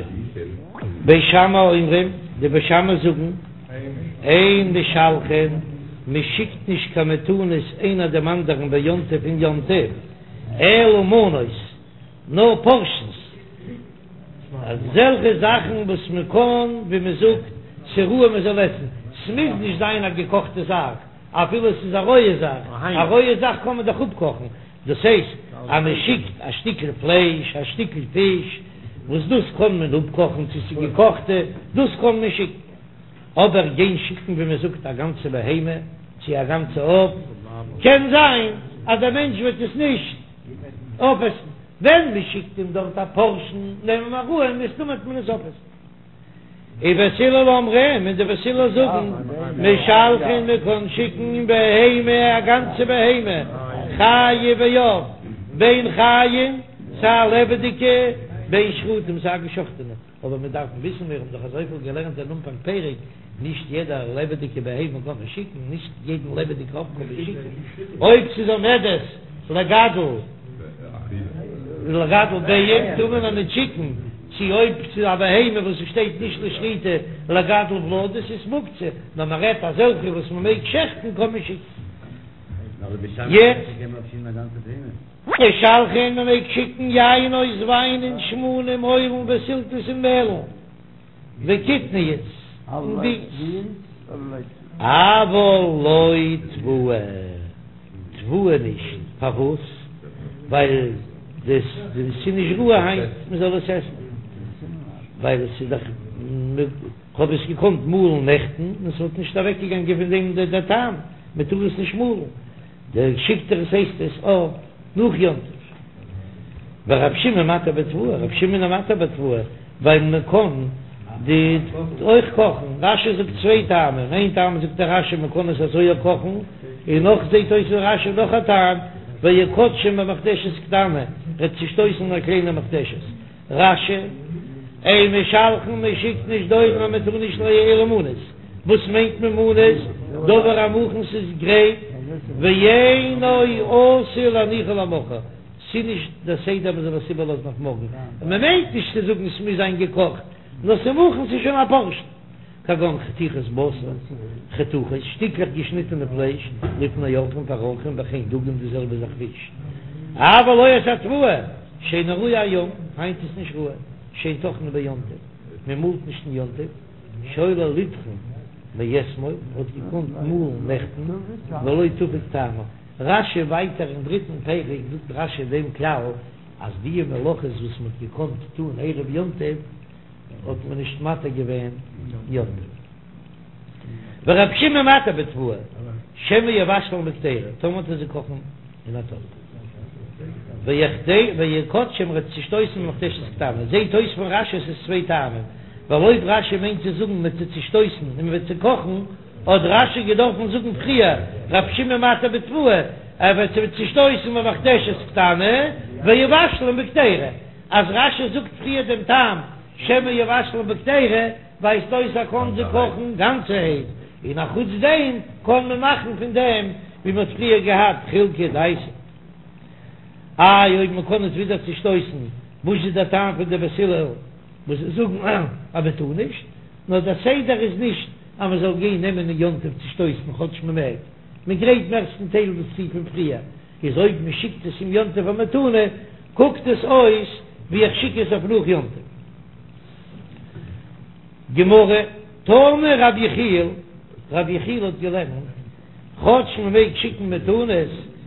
בית שמאי אומרים, די בית שמאי זאגן. אין משלחין, מען שיקט נישט קיין מתנות איינער דעם אנדערן ביום טוב אין יום טוב, אלא מנות, נאר פארשענס, אזעלכע זאכן וואס מען קען, ווי מען זאגט, ס'ראוי מען זאל עסן, ס'מוז נישט זיין א געקאכטע זאך, אפילו ס'איז א רויע זאך, א רויע זאך קען מען דאך אפקאכן, דאס הייסט אז מען שיקט א שטיקל פלייש, א שטיקל פיש, וואס דאס קען מען אפקאכן צו ס'איז געקאכטע, דאס קען מען שיקן. אבער גיין שיקן ווי מען זאגט א גאנצע בהמה צו א גאנצע עוף, קען זיין אז דער מענטש וועט עס נישט אויפעסן, ווען מען שיקט אים דארט א פארשן נעמען מיר אן מסתמא וועט מען עס אויפעסן. ובית הלל אומרים, און די בית הלל זאגן, משלחין מען קען שיקן בהמה א גאנצע בהמה, חיה ועוף, בין חיים סיי לעבעדיגע, בין שחוטים סיי געשחטענע. אבער מיר דארפן וויסן, מיר האבן דאך אזויפיל געלערנט אין אנפאנג פרק, נישט יעדע לעבעדיגע בהמה קען מען שיקן, נישט יעדן לעבעדיגע עוף קען מען שיקן, אויב ס'איז עומדת לגדל לגדל ביעים טאר מען איר נישט שיקן, צו אויב ס'איז א בהמה וואס ס'שטייט נישט לשחיטה לגדל ולדות איז מוקצה, נאר מען רעדט אזעלכע וואס מען מעג שעכטן קען מען שיקן. יעצט. משלחין מען מעג שיקן יינות וויין און שמנים אוילן וסלתות און מעלן וקטניות און בינס אבל לא תבואה תבואה נישט פארוואס ווייל דאס איז נישט ראוי היינט מען זאל עס עסן ווייל עס איז דאך כ'האב עס געקאנט מאלן נעכטן און ס'וואלט נישט אוועקגעגאנגען פון דעם דער טעם מען טאר עס נישט מאלן. דער שיקט ער עס הייסט עס אויף נאך יום טוב. ורב שמעון מתיר בתבואה, רב שמעון איז מתיר בתבואה, ווייל מען קען די אויך קאכן, רש"י זאגט צוויי טעמים, איין טעם זאגט דער רש"י מען קען עס אזוי אויך קאכן, און נאך זעט אויס אין רש"י נאך א טעם, ויכתשם במכתשת קטנה, ר'עט צושטויסן אין א קליינע מכתשת. רש"י, אין משלחין מען שיקט נישט דורון אז מען טאר נישט אלא מנות, וואס מיינט מען מנות? דבר המוכן ס'איז גרייט, ואינו עשוי להניחו למחר, ס'איז נישט דער סדר מען זאל עס איבערלאזן אויף מארגן, און מען מיינט נישט צו זאגן ס'מוז זיין געקאכט, נאר ס'איז מוכן ס'איז שוין א פארשן. כגון חתיכות בשר, חתוכות, שטיקלעך געשניטענע פלייש, לפני אורחים פאר אורחים וכן דגים די זעלבע זאך פיש. אבל לא את התבואה, שאינה ראויה היום, היינט איז נישט ראוי, שאין טוחנין ביום טוב. מען מאלט נישט אין יום טוב, שהיה לו לטחון מאתמול, האט געקאנט מאלן נעכטן, ולא תפג טעמה. רש"י ווייטער אין דריטן פרק זאגט רש"י דעם כלל אז די מלאכות וואס מען האט געקאנט טון ערב יום טוב האט מען נישט מתיר געווען יום טוב. ורבי שמעון מתיר בתבואה, שמא יבשלן בקדירה, טאמער וועט ער זיי קאכן אין א טאפ. ויקדשם ער וועט צושטויסן במכתשת קטנה, זעהט אויס פון רש"י עס איז צוויי טעמים, ווייל אויב רש"י מיינט צו זאגן מען וועט זיי צושטויסן און מען וועט זיי קאכן, האט רש"י געדארפן זאגן פריער רבי שמעון מתיר בתבואה, ער וועט זיי צושטויסן במכתשת קטנה ויבשלן בקדירה, אז רש"י זאגט פריער דעם טעם שמא יבשלן בקדירה, ווייזט אויס ער קען זיי קאכן גאנצערהייט, און א חוץ דעם קען מען מאכן פון דעם ווי מען האט פריער געהאט חילקא דייסא. איי אויב מען קען עס ווידער צושטויסן, וואס איז דער טעם פון די בית הלל וואס זאגן אז מען טאר נישט? נאר דער סדר איז נישט אז מען זאל גיין נעמען אין יום טוב צושטויסן כאטש מען מעג, מען גרייט מערסטן טייל דאס צו פון פריער, איז אויב מען שיקט עס אום יום טוב א מתנה קוקט עס אויס ווי איך שיק עס אויף נאך יום טוב. גמרא, תנא רבי יחיאל, רבי יחיאל האט געלערנט, כאטש מען מעג שיקן מתנות,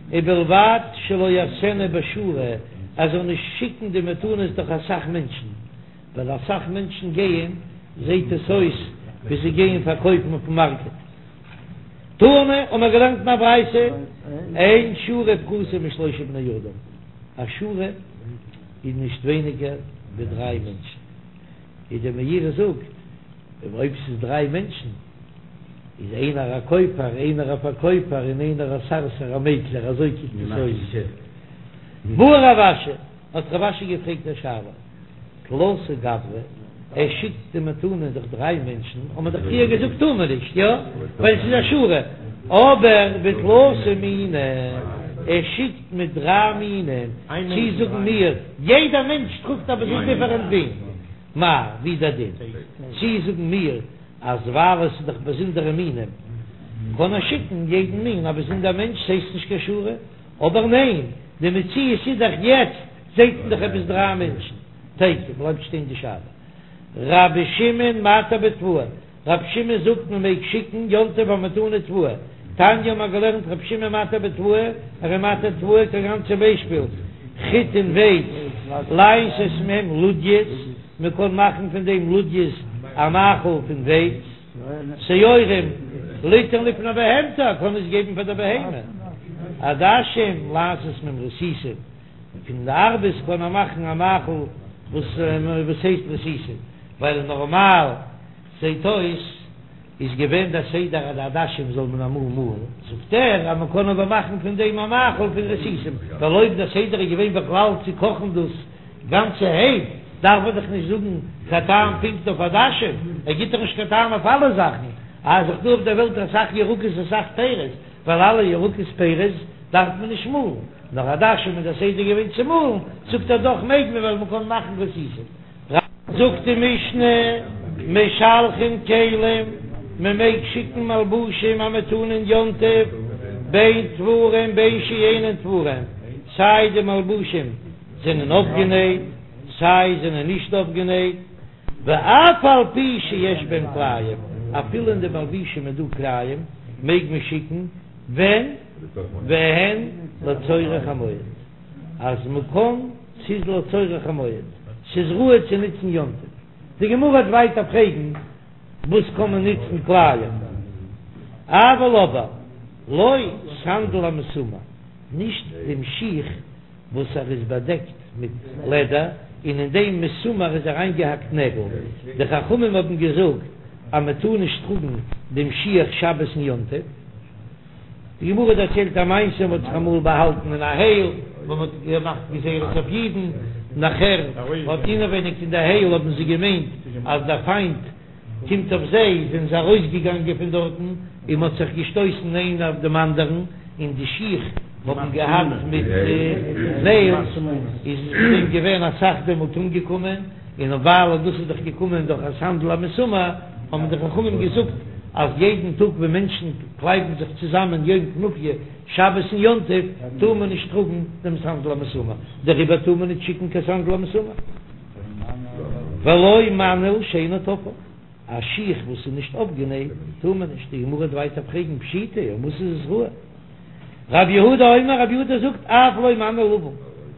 ובלבד שלא יעשנה בשורה, ער זאל נישט שיקן די מתנות דורך אסאך מענטשן, ווייל אסאך מענטשן גייען, זעט עס אויס ווי זיי גייען פארקויפן אויפן מארקעט. תנא, האבן מיר געלערנט אין א ברייתא, אין שורה פחותה משלושה בני אדם, א שורה איז נישט ווייניגער ווי דריי מענטשן, ווי דער מאירי זאגט, אויב ס'איז דריי מענטשן, איז איינער א קויפער, איינער א פארקויפער, און איינער א סרסור א מעקלער, אזוי קוקט עס אויס. בעי רב אשי, האט רב אשי געפרעגט א שאלה. תלתא גברי, ער שיקט די מתנה דורך דריי מענטשן, האט מען דאך פריער געזאגט טאר מען נישט, יא? ווייל עס איז א שורה, אבער בתלתא מיני, ער שיקט מיט דריי מינים, צי זאגן מיר, יעדע מענטש טראגט א באזונדערע מין, מאי, ווי דער דין, צי זאגן מיר אז ווייל עס איז דאך באזונדערע מינים, קען ער שיקן יעדן מין א באזונדער מענטש, ס'הייסט נישט קיין שורה, אבער ניין, די מציאות איז דאך יעצט זעהט מען דאך עפעס דריי מענטשן, תיקו, בלייבט שטיין די שאלה. רבי שמעון מתיר בתבואה, רבי שמעון זאגט מען מעג שיקן יום טוב א מתנה תבואה, תניא האט מען געלערנט רבי שמעון מתיר בתבואה, ער איז מתיר תבואה כגון צום ביישפיל חיטין ווייץ, לעשות מהם לודיות, מען קען מאכן פון דעם לודיות א מאכל פון ווייץ. שעורים ליתן לפני בהמתו, ער קען עס געבן פאר דער בהמה. עדשים לעשות מהם רסיסים, פון די ארבעס קען ער מאכן א מאכל וואס וואס הייסט רסיסים, ווייל נארמאל זעט אויס איז געווען דער סדר אז די עדשים זאל מען אמאל מאלן, זאגט ער אז מען קען אבער מאכן פון דעם א מאכל פון רסיסים, ווייל אויב דער סדר איז געווען בכלל צו קאכן דאס גאנצערהייט דארף ער דאך נישט זאגן קיין טעם פונקט אויף עדשים, ער גיט דאך נישט קיין טעם אויף אלע זאכן, אז ס'איז דא אויף דער וועלט אסאך ירקות אסאך פירות, ווייל אלע ירקות פירות דארף מען נישט מאלן, נאר עדשים איז דער סדר געווען צו מאלן, זאגט ער דאך מעג מען ווייל מען קען מאכן רסיסים. זאגט די משנה, משלחין כלים, מען מעג שיקן מלבושים א מתנה אין יום טוב, בין תפורין בין שאינן תפורין, סיי די מלבושים זענען אויפגענייט, סיי זענען נישט אויפגענייט, ואף על פי שיש בהם כלאים, אפילו אין די מלבושים איז דא כלאים, מעג מען שיקן, ווען? והן לצורך המועד, אז מ'קען, ס'איז לצורך המועד, ס'איז ראוי צו נוצן יום טוב. די גמרא וועט ווייטער פרעגן, וואס קען מען נוצן כלאים? אבל אבער, לא סנדל המסומר, נישט דעם שיך וואס ער איז באדעקט מיט לעדער און אין דעם מסומר איז אריינגעהאקט נעגל, די חכמים האבן געזאגט אז מען טאר נישט טראגן דעם שיך שבת און יום טוב. די גמרא דערציילט א מעשה, מען האט זיך אמאל באהאלטן אין א הייל וואו מען האט געמאכט גזירות אויף אידן, נאכער האט אינעווייניג אין די הייל האבן זיי געמיינט אז דער פיינט קומט אויף זיי, זענען זיי ארויסגעגאנגען פון דארטן און מ'האט זיך געשטויסן איינער אויף דעם אנדערן, און די שיך האבן געהאט מיט נעילס, איז עס דעם געווען אסאך דעמאלט אומגעקומען, און ווייל דאס איז דאך געקומען דורך א סנדל המסומר, האבן די חכמים געזאגט אז יעדן טאג ווען מענטשן קלייבן זיך צוזאמען יום כנופיא, שבת און יום טוב, טאר מען נישט טראגן דעם סנדל המסומר, דעריבער טאר מען נישט שיקן קיין סנדל המסומר. ולא מנעל שאינו תפור, א שיך וואס איז נישט אויפגענייט טאר מען נישט, די גמרא וועט ווייטער פרעגן פשיטא, אויף וואס איז עס ראוי? רב יהודה אומר, רב יהודה זאגט אף לא מנעל לבן,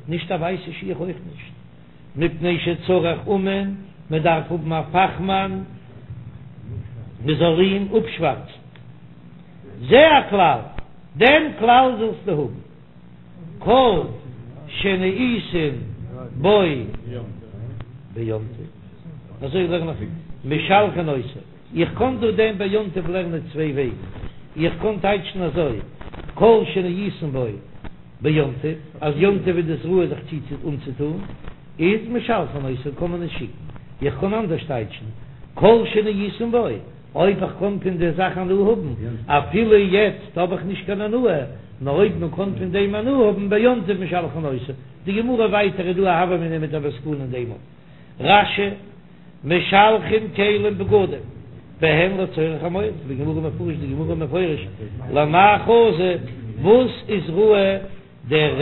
נישט א ווייסע שיך אויך נישט, מפני שצריך אומן, מען דארף האבן א פאכמאן מען זאל אים אפשווארצן, זה הכלל, דעם כלל זאלסטו האבן. כל שנאותין בו ביום טוב, אזוי לערן איך משלחין אותו, איך קען דא דעם ביום טוב לערנען צוויי וועגן, איך קען טייטשן אזוי, כל שנאותין בו ביום טוב, אז יום טוב איז דאס ראוי זיך צו אנצוטון, איז משלחין אותו קען מען עס שיקן, איך קען אנדערש טייטשן, כל שנאותין בו. אויב איך קען פון די זאך הנאה האבן, אפילו יעצט האב איך נישט קיין הנאה, נאר אויב מען קען פון דעם הנאה האבן ביום טוב משלחין אותו. די גמרא ווייטער איז דא א הוה אמינא מיט א מסקנא אין דעם. רש"י, משלחין כלים בגדים, בהן לצורך המועד, בגמרא מפרש די גמרא מפרש למאי חזי, וואס איז ראוי דער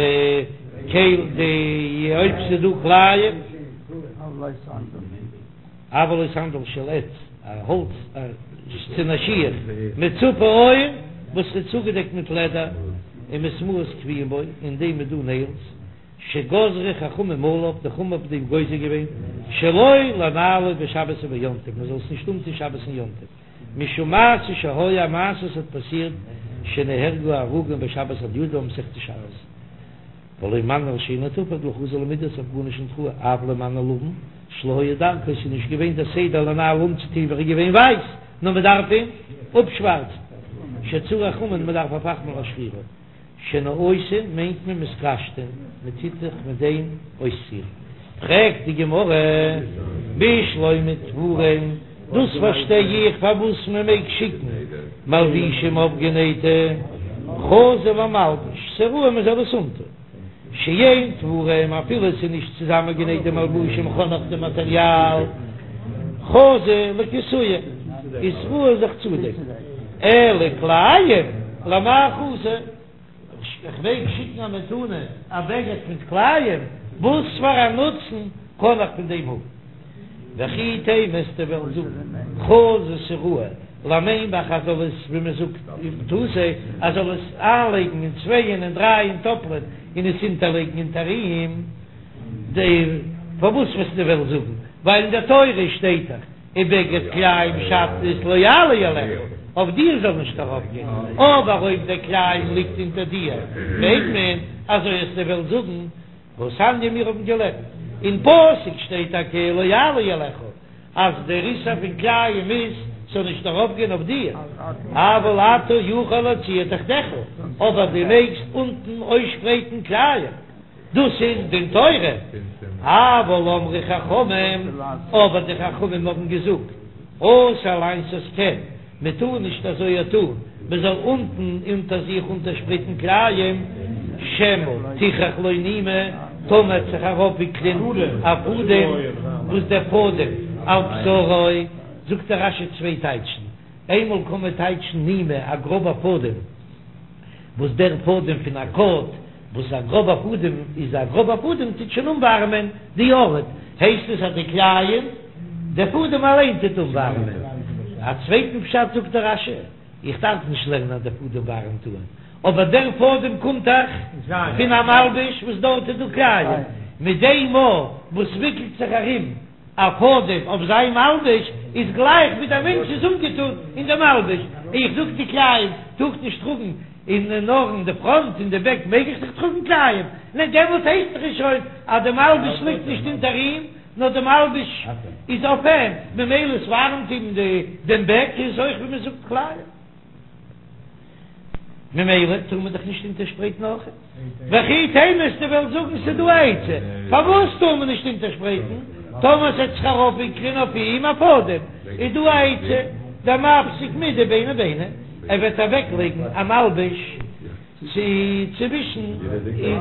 כל די אויב ס'איז דא כלאים. אבל לא סנדל של עץ, א האלץ צו א שיך, מצופה עור, וואס איז צוגעדעקט מיט לעדער, ומסמרות קבועים בו, אין דעם איז דא נעילס, שגזרו חכמים עליו, די חכמים האבן דעם גוזר געווען, שלא לנעלו בשבת וביום טוב, מען זאל עס נישט אנטון שבת און יום טוב, משום מעשה שהיה, א מעשה וואס האט פאסירט, שנהרגו הרוגים בשבת על ידו, מסכת שבת. ולא מנעל שאינו תפור דלא חזי למידי ס'איז אויף גארנישט ניט ראוי אף לא מנעל לבן שלא היה דרכו ס'איז נישט געווען דער סדר לנעלו אנצוטוהן ווען ער איז געווען ווייס נאר מ'דארף אים אפשווארצן שצריך אומן מ'דארף א פאכמאן להשחירו שנאותין מיינט מען מתקשטין מ'טוט זיך מיט דעם אויסצירן פרעגט די גמרא בשלמא תפורין דאס פארשטיי איך פארוואס מען מעג שיקן מלבישים אויפגענייטע חזי למלבש, ס'ראוי מען זאל עס אנטון שאין תפורין אפילו עס איז נישט צוזאמענגענייט די מלבושים כ'האב נאך די מאטעריאל חזי לכסויי איז ראוי זיך צודעקן אלא כלאים למאי חזי. איך מעג שיקן א מתנה א בגד מיט כלאים? וואס פאר א נוצן קען איך פון דעם האבן? וכי תימא וועסטו וועלן זאגן חזי ס'ראוי למימך אז זאל עס ווי מען זאגט אימתתא אז זאל עס איינלייגן אין צווייען און דרייען טאפלען און עס אונטערלייגן אונטער אים די פארוואס וועסטו וועלן זאגן ווייל אין דער תורה שטייט דאך ובגד כלאים שעטנז לא יעלה עליך, אויף דיר זאל נישט ארויפגיין, אבער אויב דער כלאים ליגט אונטער דיר, מעג מען, אזוי וועסטו וועלן זאגן, והתניא מיר האבן געלערנט, אין פסוק שטייט טאקע לא יעלה עליך, אז דער איסור פון כלאים איז, ס'זאל נישט ארויפגיין אויף דיר, אבל אתה יכול להציע תחתיך, אבער דו מעגסט אונטן אויסשפרייטן כלאים. דאס איז דין תורה, אבל אמרו חכמים, אבער די חכמים האבן געזאגט, אסור לעשות כן, מען טאר נישט אזוי טאן, מען זאל אונטן אונטער זיך אונטערשפרייטן כלאים, שמא תכרך לו נימא, טאמער וועט זיך ארויפוויקלען א פאדעם, וואס דער פאדעם על בשרו, זאגט דער רש"י צוויי טייטשן, איינמאל קען מען טייטשן נימא א גראבע פאדעם, וואס דער פאדעם פון א קאוט, וואס א גראבע פאדעם איז א גראבע פאדעם טוט שוין אנווארעמען די ארט, הייסט עס אז די כלאים, דער פאדעם אליין טוט אנווארעמען. א צווייטן פשט זאגט דער רש"י, איך דארף נישט לערנען אז דער פאדעם ווארעמט אן, אבער דער פאדעם קומט דאך פון א מלבוש וואס דארט איז דא כלאים, מיט דעם מאל וואס וויקלט זיך ארום א פאדעם אויף זיין מלבוש איז גלייך ווי דער מענטש איז אנגעטון אין די מלבוש, איך זאג די כלאים טאר איך נישט טראגן אין נאר אין די פראנט אין די בעק מעג איך דאך טראגן כלאים, ניין דעמאלט הייסט דאך עס שוין אז די מלבוש ליגט נישט אונטער אים נאר די מלבוש איז אויף אים, ממילא עס ווארעמט אים דעם בעק איז אויך ווי מען זאגט כלאים. ממילא טאר מען דאך נישט אונטערשפרייטן אויך. וכי תימא וועסטו וועלן זאגן ס'איז דא א עצה פארוואס טאר מען נישט אונטערשפרייטן, טאמער ס'עט זיך ארויפוויקלען אויף אים א פאדעם, איז דא א עצה, דמפסיק מידי ביני ביני, ער וועט אוועקלייגן א מלבוש צו צווישן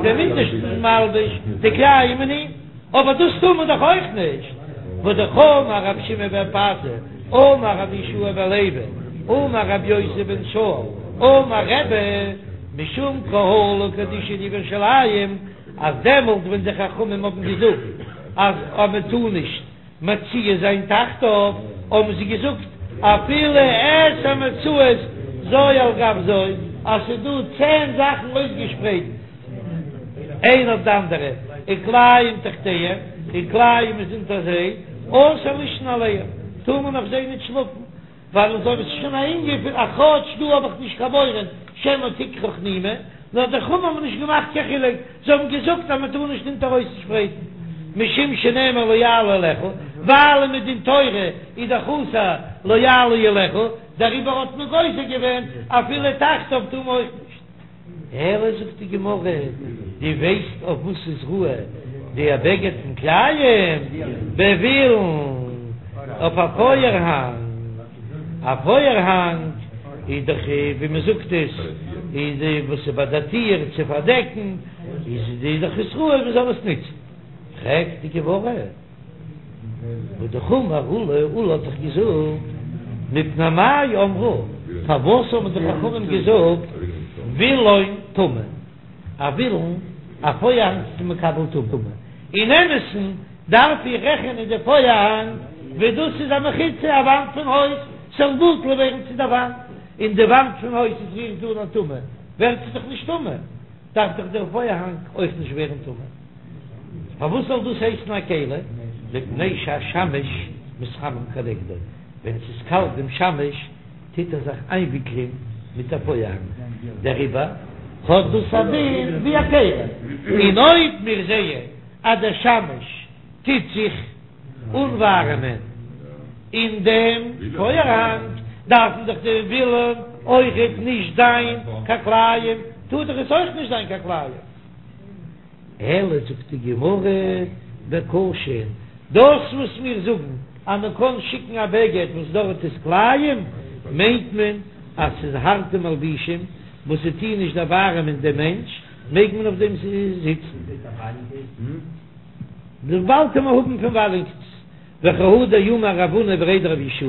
דעם אונטערשטן מלבוש די כלאים און אים. אבער דאס טאר מען דאך אויך נישט, והאמר רבי שמעון בן פזי, אמר רבי יהושע בן לוי, אמר רבי יוסי בן שאול, אמר רבי, משום קהלא קדישא דירושלים, אז דעמאלט ווען די חכמים האבן געזאגט אז מען טאר נישט. מציע זיין תחתיו, האבן זיי געזאגט אפילו עשר מצעות זו על גב זו, אז ס'איז דא צען זאכן אויסגעשפרייט איין אויף די אנדערע, וכלאים תחתיהם, און כלאים איז אונטער זיי, אסור לישון עליהם, טאר מען אויף זיי ניט שלאפן. ווייל אזוי ווי ס'איז שוין א ענין פון א כאטש דא האב איך נישט קיין מורא שמא תכרך נימא, נאר די חכמים האבן נישט געמאכט קיין חילוק, זיי האבן געזאגט אז מ'טאר נישט אונטער אויסשפרייטן משום שנאמר לא יעלה עליך, ווייל מדין תורה איז דאך אסור לא יעלה עליך, דעריבער האט מען גוזר געווען אפילו תחתיו טאר מען אויך נישט. אלא זאגט די גמרא, דו ווייסט אויף וואס איז ראוי די בגד פון כלאים? בווילון, אויף א פויערהאנג, א פויערהאנג איז דאך ווי מען זאגט עס איז די וואס איז ביי די טיר צו פארדעקן, איז די דאך איז ראוי מען זאל עס נוצן, פרעגט די גמרא. והאמר עולא, עולא האט דאך געזאגט, מפני מה אמרו, פארוואס האבן די חכמים געזאגט וילון טמא, א וילון, א פויערהאנג איז מקבל טומאה, אין אמת'ן דארף איך רעכענען די פויערהאנג ווי דאס איז א מחיצה, א וואנט פון הויז, ס'זאל בטל ווערן צו די וואנט, און די וואנט פון הויז איז רירט אן א טומאה, ווערט זי דאך נישט טמא, דארף דאך דער פויערהאנג אויך נישט ווערן טמא. פארוואס זאל דאס הייסן א כלי? מפני שהשמש מתחמם כנגדו, ווען ס'איז קאלט דעם שמש טוט ער זיך איינוויקלען מיט א פויערהאנג, דעריבער האט דאס א דין ווי א כלי, און אויב מיר זעען אז דער שמש טוט זיך אנווארעמען אין דעם פויערהאנג, דארפן דאך די וילון אויכעט נישט זיין קיין כלאים, טאר דאך עס אויך נישט זיין קיין כלאים. אלא זאגט די גמרא בקשין, דאס וואס מיר זאגן אז מען קען שיקן א בגד וואס דארט איז כלאים, מיינט מען אז ס'איז הארטע מלבישים וואס זיי טוען נישט דערווארעמען דעם מענטש, מעג מען אויף דעם זיצן. באלד וועט מען האבן פון וואלענקעס. וכי הא דאמר רב הונא בריה דרב יהושע,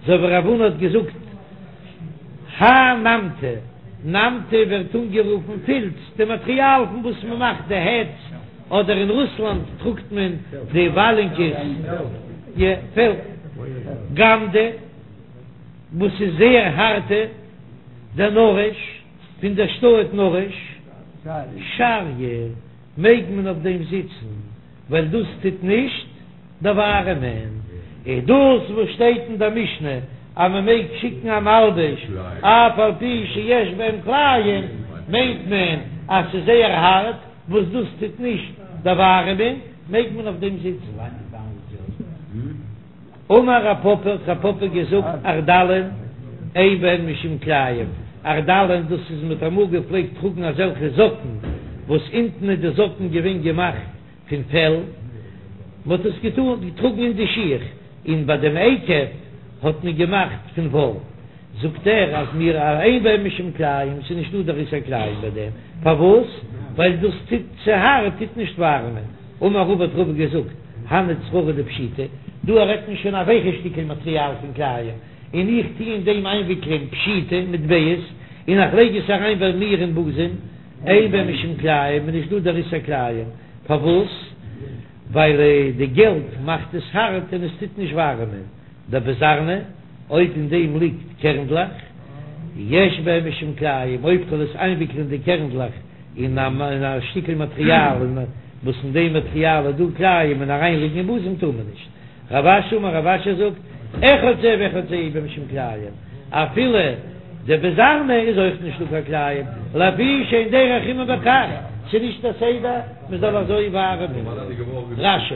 אזוי ווי רב הונא האט געזאגט האי נמטי, נמטי ווערט אנגערופן פילץ, די מאטריאל פון וואס מען מאכט די העטס, אדער אין רוסלאנד טראגט מען די וואלענקעס, יא, פעל, גמדא, וואס איז זייער הארטע, דנרש, פון דער שטאט נרש, שריא, מעג מען אויף דעם זיצן. ווייל דאס טוט נישט דערווארעמען, און דאס וואס שטייט אין דער משנה אז מען מעג שיקן א מלבוש אף על פי שיש בהם כלאים, מיינט מען אז ס'איז זייער הארט, וואס דאס טוט נישט דערווארעמען, מעג מען אויף דעם זיצן. אמר רב פפא, האט רב פפא געזאגט, ערדלין אין בהן משום כלאים, ערדלין דאס איז מ'האט אמאל געפלעגט טראגן אזעלכע זאקן וואס אונטן איז די זאקן געווען געמאכט פון פעל, מען האט עס געטראגן אין די שיך, און ביי דעם עקב האט מען געמאכט פון וואל, זאגט ער אז מיר אין בהן משום כלאים, ס'איז נישטא דער איסור כלאים ביי דעם, פארוואס? ווייל דאס טוט צו הארט טוט נישט ווארעמען, אמר רבא האט רבא געזאגט, הני צררי דפשיטי, דא רעדט מען שוין א ווייכע שטיקל מאטריאל פון כלאים, און איך טו אין דעם איינוויקלען פשיטי מטבעות, און איך לייג עס אריין ביי מיר אין בוזעם, אין בהם משום כלאים, איז נישט דא דער איסור כלאים, פארוואס? ווייל די געלט מאכט עס הארט און עס טוט נישט ווארעמען, דבזרני, אויב אין דעם ליגט קערנדלעך, יש בהם משום כלאים, אויב כ'וועל עס איינוויקלען די קערנדלעך אין א שטיקל מאטריאל וואס אין דעם מאטריאל איז דא כלאים און אריינלייגן אין בוזעם טאר מען נישט. רב אשי אמר רב אשי זאגט, אחד זה ואחד זה אין בהם משום כלאים, אפילו דבזרני איז אויך נישט דא קיין כלאים, לפי שאין דרך חימום בכך, ס'איז נישט א סדר מ'זאל אזוי ווארעמען. רש"י.